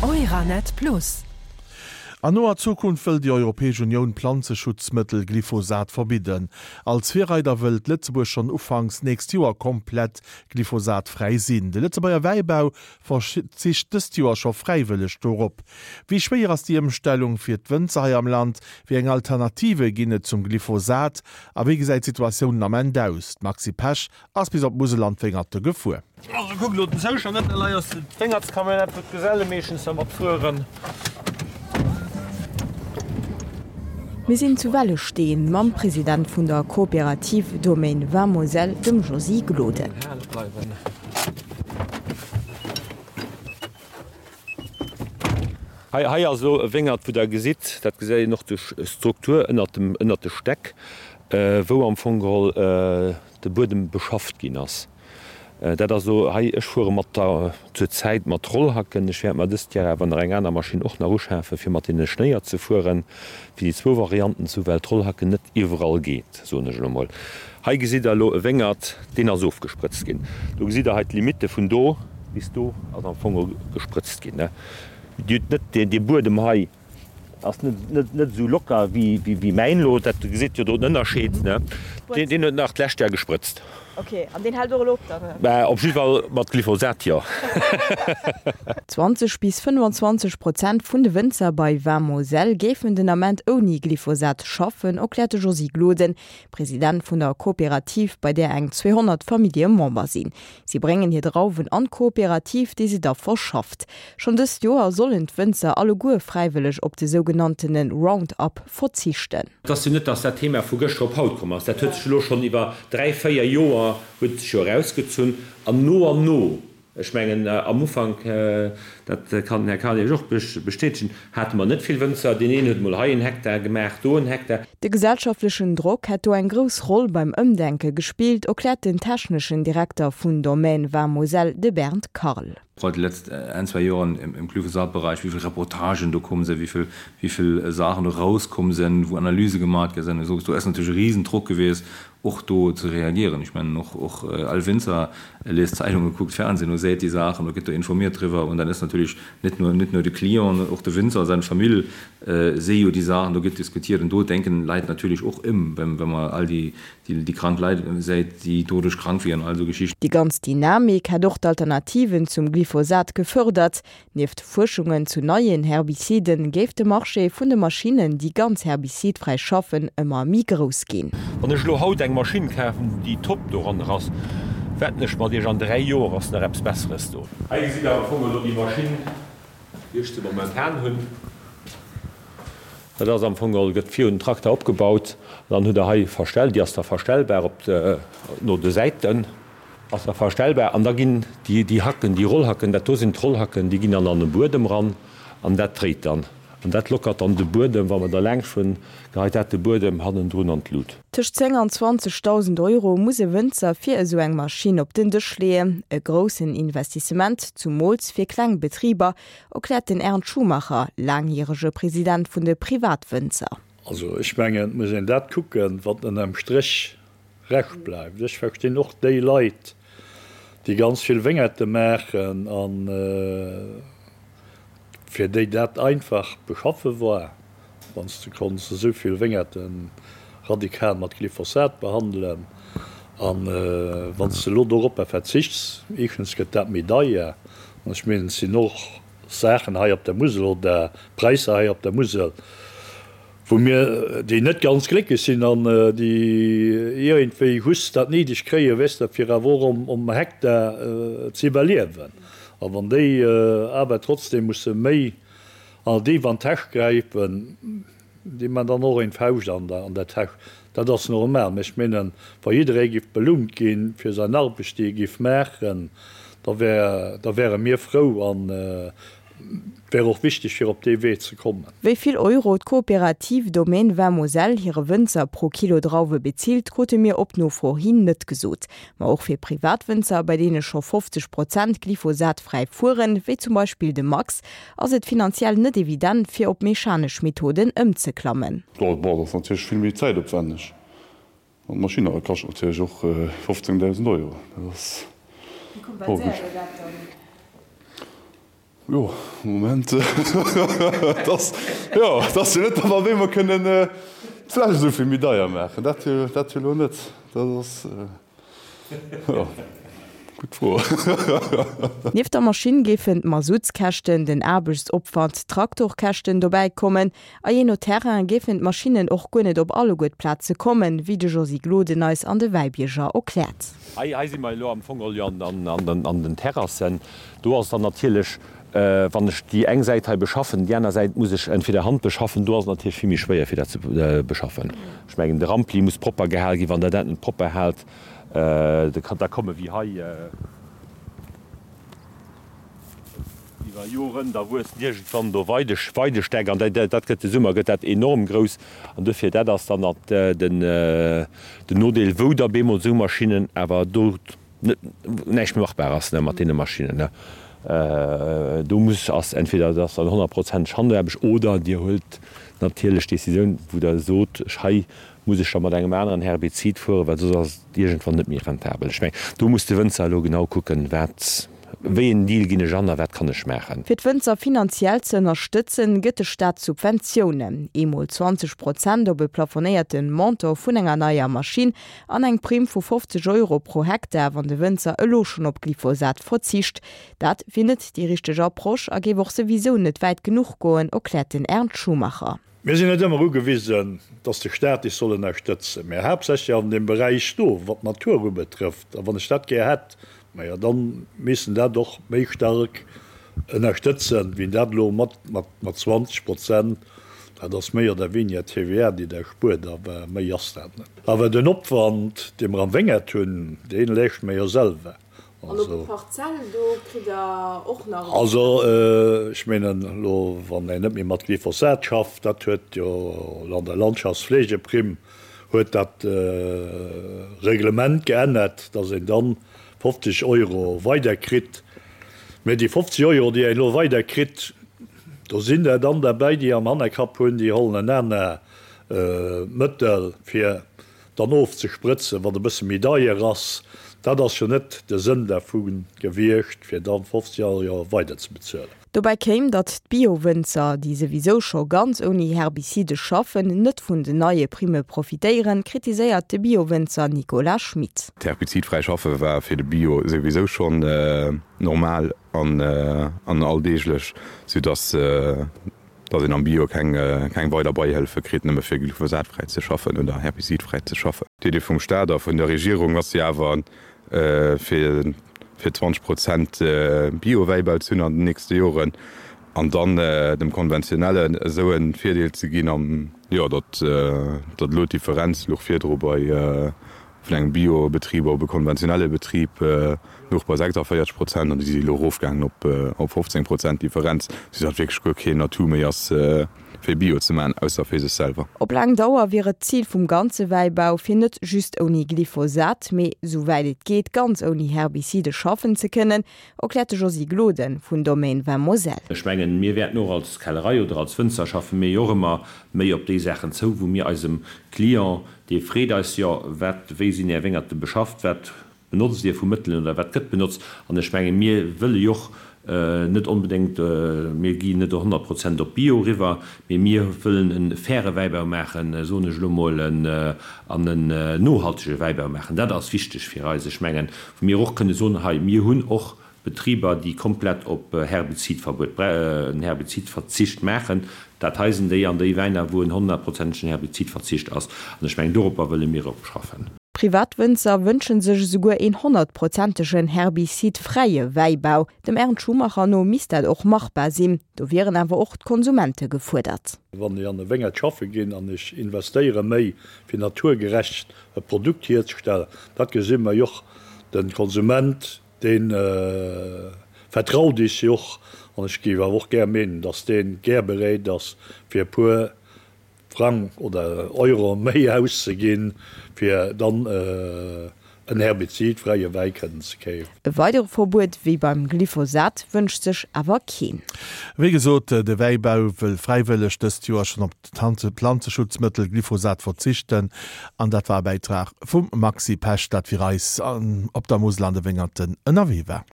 Euranet Plus. An noer Zukunft wëll déi Europäesch Unioun d'Planzeschutzmëttel Glyphosat verbidden. Als Virreider wëllt Lëtzebuerg schonn ufanks nächst Joer komplett glyphosatfräi sinn. De Lëtzebuerger Wäibau verzicht dëst Joer scho fräiwëlleg dorop. Wéi schwéier ass déi Ëmstellung fir d'Wënzer hei am Land? Wéi eng Alternative ginn et zum Glyphosat? A wéi gesäit d'Situatioun den Ament aus? D'Maxi Pesch ass bis op d'Musel an d'Wéngerte gefuer. Also kuck elo den Zoustand net, hei ass d'Wéngertscamionnette wou d'Geselle meeschtens dermat fueren. Mir sinn zu Wellesteen mam President vun der Coopérative Domaine Vin Moselle, dem Josy Gloden. Hei hei ass elo e Wéngert wou der gesitt, dat gesäit een och duerch d'Struktur ënnert dem ënnert de Stäck, wou am Fong geholl de Buedem beschafft ginn ass. Dat ass elo hei, ech fuere mat der zur Zäit mat Rollhacken. Ech wäert mer dëst Jar awer nach eng aner Maschinn och nach uschafen, fir mat deene Schnéier ze fueren, fir déi zwou Varianten ze hu, well d'Rollhacken net iwwerall geet, soen ech elo mol. Hei gesitt Der elo e Wéngert, deen ass ofgesprëtzt ginn. Do gesitt Der hei d'Limitte vun do bis do ass am Fong gesprëtzt ginn. Dir hutt net dee Buedem hei. Ass net net esou locker wéi mäin elo. Dat gesitt jo do den Ënnerscheed, ne? Deen huet nach d'lescht Jar gesprëtzt. Ok, an deen hält och elo op dann? Bah, op jidde Fall mat Glyphosat, jo. 20 bis 25 Prozent vun de Wënzer bei Vin Moselle géifen den Ament ouni Glyphosat schaffen, erkläert de Josy Gloden, President vun der Kooperativ, bei där eng 200 Famillje Member sinn. Si bréngen hir Drauwen an d'Kooperativ, déi se da verschafft. Schonn dëst Joer sollen d'Wënzer alleguer fräiwëlleg op de sougenanntene Roundup verzichten. Et ass jo net, dass dat Thema vu gëschter op haut komm ass. Dat huet sech elo schonn iwwer dräi, véier Joer huet et sech jo erausgezunn. An no an no, ech mengen am Ufank, dat kann den Här Karl Iech och bestätegen, hate mer net vill Wënzer. Deen een huet emol hei en Hektar gemaach, do en Hektar. De gesellschaftlechen Drock hätt do eng grouss Roll beim Ëmdenke gespillt, erkläert den techneschen Direkter vun Domaine Vin Moselle, de Bernd Karl. Gerade die letzten ein, zwei Joren im Glyphosat-Bereich, wéi vill Reportagen do komm sinn, wéi vill, wéi vill Saachen do rauskomm sinn, wou Analyse gemaat gi sinn, esou. Do ass natierlech e Riesendruck gewiescht, och do ze reagieren. Ech mengen, och, och all Winzer liest Zeitungen, kuckt Fernsehen u, seet déi Saachen, do gëtt do informiert driwwer. Und dann ass natierlech net nur, net nur de Client, och de Winzer a seng Famill si jo déi Saachen, do gëtt diskutiert. Und do denken Leit natierlech och ëm, wa mer all déi, déi krank Leit säit déi doduerch krank wieren, all esou Geschichten. Déi ganz Dynamik hätt och d'Alternativen zum Glyphosat gefërdert. Nieft Fuerschungen zu neien Herbiziden géif de Marché vun de Maschinnen, déi ganz herbizidfräi schaffen, ëmmer méi grouss ginn. Wann ech elo haut eng Maschinn kafen, déi top doranner ass, wetten ech mat iech, an 3 Joer ass nach eppes Besseres do. Hei gesitt der am Fong elo déi Maschinn, déi ech de momentan hunn. Dat ass am Fong geholl, gëtt virun den Trakter opgebaut an dann hutt der hei verstell, déi ass da verstellbar op de, no de Säiten ass da verstellbar an da ginn déi, déi Hacken, déi Rollhacken, dat do sinn d'Rollhacken, déi ginn dann an de Buedem ran an dat dréit dann an dat lockert dann de Buedem, wa mer da laangscht hunn, geheit dat de Buedem hannendrun an d'Lut. Tëscht 10 an 20.000 Euro muss e Wënzer fir esou eng Maschinn op den Dësch leeën. E groussen Investissement, zumools fir kleng Betriber, Erkläert den Ernst Schumacher, laangjärege President vun de Privatwënzer. Also ech mengen, et muss een dat kucken, wat ënnerm Stréch Rescht bleift. Ech verstinn och déi Leit, déi ganz vill Wéngerte maachen a fir déi dat einfach beschaffe war, wann s de konns esou vill Wéngerte radikal mat Glyphosat behandelen. A wann s de elo doropper verzichts, éischtens gëtt dat méi deier, an ech mengen, et sinn och Saachen hei op der Musel oder Präisser hei op der Musel, wou mir, déi net ganz glécklech sinn an déi iergendwéi just dat néideg kréien, weess de, fir awer och um Hektar ze iwwerliewen. A wann déi awer trotzdem musse méi an déif an d'Täsch gräifen, déi man dann och een Fauscht an der Täsch. Dat ass normal. Mä ech menen, wa jidderee giff belount ginn fir säin Arbecht, déi e giff maachen, da wär, da wäre mir frou an et wär och wichteg fir op dee Wee ze kommen. Wéi vill Euro d'Coopérative Domaine Vin Moselle hire Wënzer pro Kilo Drauwe bezilt, krute mir op Nofro hin net gesot. Ma och fir Privatwënzer, bei deene scho 50 Prozent glyphosatfräi fueren, wéi zum Beispill de Max, ass et finanziell net evident, fir op mechanesch Methoden ëmzeklammen. Bon, dat ass natierlech vill méi zäitopwänneg. An d'Maschinn kascht natierlech och 15.000 Euro. Dat ass. Wéi kompenséiert Dir dat dann? Jo, Moment, et ass, jo, et ass jo net, datt mer op eemol kënnen d'Fläsch esou vill méi deier maachen. Dat jo, dat jo elo net. Dat ass, jo, gutt Fro. Nieft der Maschinn géifen d'Masutskäschten, den Aarbechtsopwand, d'Traktorkäschten dobäi kommen. A jee no Terrain géifen d'Maschinnen och guer net op alleguer d'Plaze kommen, wéi de Josy Gloden eis an de Wäibierger erkläert. Hei, hei si mer elo am Fong jo an den Terrassen. Do ass dann natierlech, wann ech déi eng Säit hei beschaffen, déi aner Säit muss ech entweder Hand beschaffen, do ass et natierlech vill méi schwéier fir dat ze beschaffen. Ech mengen de Rampli muss propper gehal ginn, wann Der dat net propper haalt, da komme wéi hei iwwer Joren, da wuessen iergendwann do Weidestäck an dat gëtt de Summer gëtt dat enorm grouss an dofir dat ass dann den Nodeel wou da bemol esou Maschinnen awer do net näischt méi machbar ass mat deene Maschinnen. Do muss ass entweder et ass dann honnertprozenteg Handaarbecht oder Dir huelt natierlech d'Decisioun, wou Der sot, ech hei muss ech da mat engem aneren Herbizid fueren, well soss ass et iergendwann net méi rentabel. Ech mengen, do muss de Wënzer elo genau kucken, wat, wéi en Deal ginn ech an a wat kann ech maachen. Fir d'Wënzer finanziell ze ënnerstëtzen, gëtt de Staat Subventiounen, eemol 20 Prozent op e plafonéierte Montant vun enger neier Maschinn An eng Primm vu 50 Euro pro Hektar, wann de Wënzer elo schonn op Glyphosat verzicht. Dat wier net déi richteg Approche a géif och souwisou net wäit genuch goen, erkläert den Ernst Schumacher. Mir sinn net ëmmer ugewisen, dass de Staat is soll ënnerstëtzen, mä haaptsächlech an deem Beräich do, wat d'Natur ubetrëfft. A wann ech dat gär hätt, majo, da misst en dat och méi stark ënnerstëtzen, wéi en dat elo mat 20 Prozent Dat ass méi oder weniger TVA, déi Der spuert, awer méi ass dat net. Awer den Opwand, dee mer am Wéngert hunn, dee leeschte mer jo selwer. An op d'Parzell, do kritt Der och nach. Also, ech mengen elo, wann een net méi mat Glyphosat schafft, dat huet jo elo an der Landschaftspflegeprimm huet dat Reglement geännert, dass een dann 50 Euro weider kritt. Mä déi 50 Euro, déi een elo weider kritt, Do sinn der dann derbäi, déi am Hannerkapp hunn, déi hollen en aner Mëttel, fir dann ofzesprëtzen, wat e bësse méi deier ass. Dat ass jo net de Sënn dervu gewiescht, fir dann 50 Euro weider ze bezuelen. Dobäi kéim, datt d'Bio-Wënzer, déi souwisou scho ganz ouni Herbizide schaffen, net vun den neie Primme profitéieren, kritiséiert de Bio-Wënzer Nicolas Schmit. D'herbizidfräi Schaffe war fir de Bio souwisou schonn normal. an alldeeglech, sou dass dass een am Bio keng keng weider Beihëllefe kritt, nëmme fir glyphosatfräi ze schaffen oder herbizidfräi ze schaffen. D'Idee vum Staat a vun der Regierung ass jo awer fir fir 20 Prozent Bio-Wäibau ze hunn an den nächste Joren an dann dem Konventionellen esou e Virdeel ze ginn an jo datt datt elo d'Differenz louch virdru bei Vun engem Bio-Betrib op e konventionelle Betrib louch bei 46 Prozent an déi si elo erofgaangen op 15 Prozent Differenz, soudatt wierklech guer keen Atout méi ass, fir Bio ze maachen, ausser fir sech selwer. Op laang Dauer wier et d'Zil vum ganze Wäibau, fir net just ouni Glyphosat, mee souwäit et geet ganz ouni Herbizide schaffen ze kënnen, erkläert de Josy Gloden vun Domaine Vin Moselle. Ech mengen, mir wäerten och als Kellerei oder als Wënzer schaffe mir jo och ëmmer méi op déi Saachen zou, wou mir eisem Client Dir freet eis jo, wat, wéi sinn Är Wéngerte beschafft, wat benotzt Dir vu Mëttelen oder wat gëtt benotzt? An ech menge mir wëlle jo och net onbedéngt, mir ginn net 100 Prozent op Bio eriwwer, mee mir wëllen e faire Wäibau maachen, soen ech elo mol, an en nohaltege Wäibau maachen. Dat ass wichteg fir eis. Ech mengen, wou mir och kënne soen, hei, mir hunn och Betriber, déi komplett op Herbizidverbuet, en Herbizidverzicht maachen. Dat hei sinn déi an déi Wäiner, wou en honnertprozentegen Herbizidverzicht ass. An ech mengen, doropper wëlle mir och schaffen. Privatwënzer wënsche sech esouguer een honnertprozentegen herbizidfräie Wäibau. Dem Ernst Schumacher no misst dat och machbar sinn. Do wieren awer och d'Konsumente gefuerdert. Wann ech an e Wéngert schaffe ginn an ech investéiere méi fir naturgerecht e Produkt hierzestellen, dat gesi mer jo och, de Konsument Dee vertraut is jo och, an ech géif awer och gär meenen, datt dee gär bereet ass, fir e puer Frang oder Euro méi auszeginn, fir dann en herbizidfräie Wäi kënnen ze kefen. E weidere Verbuet wéi beim Glyphosat wënscht sech awer keen. Wéi gesot, de Wäibau wëll fräiwëlleg dëst Joer schonn op d'Planzeschutzmëttel Glyphosat verzichten. An dat war e Bäitrag vum Maxi Pesch, dat fir eis op der Musel an de Wéngerten ënnerwee war.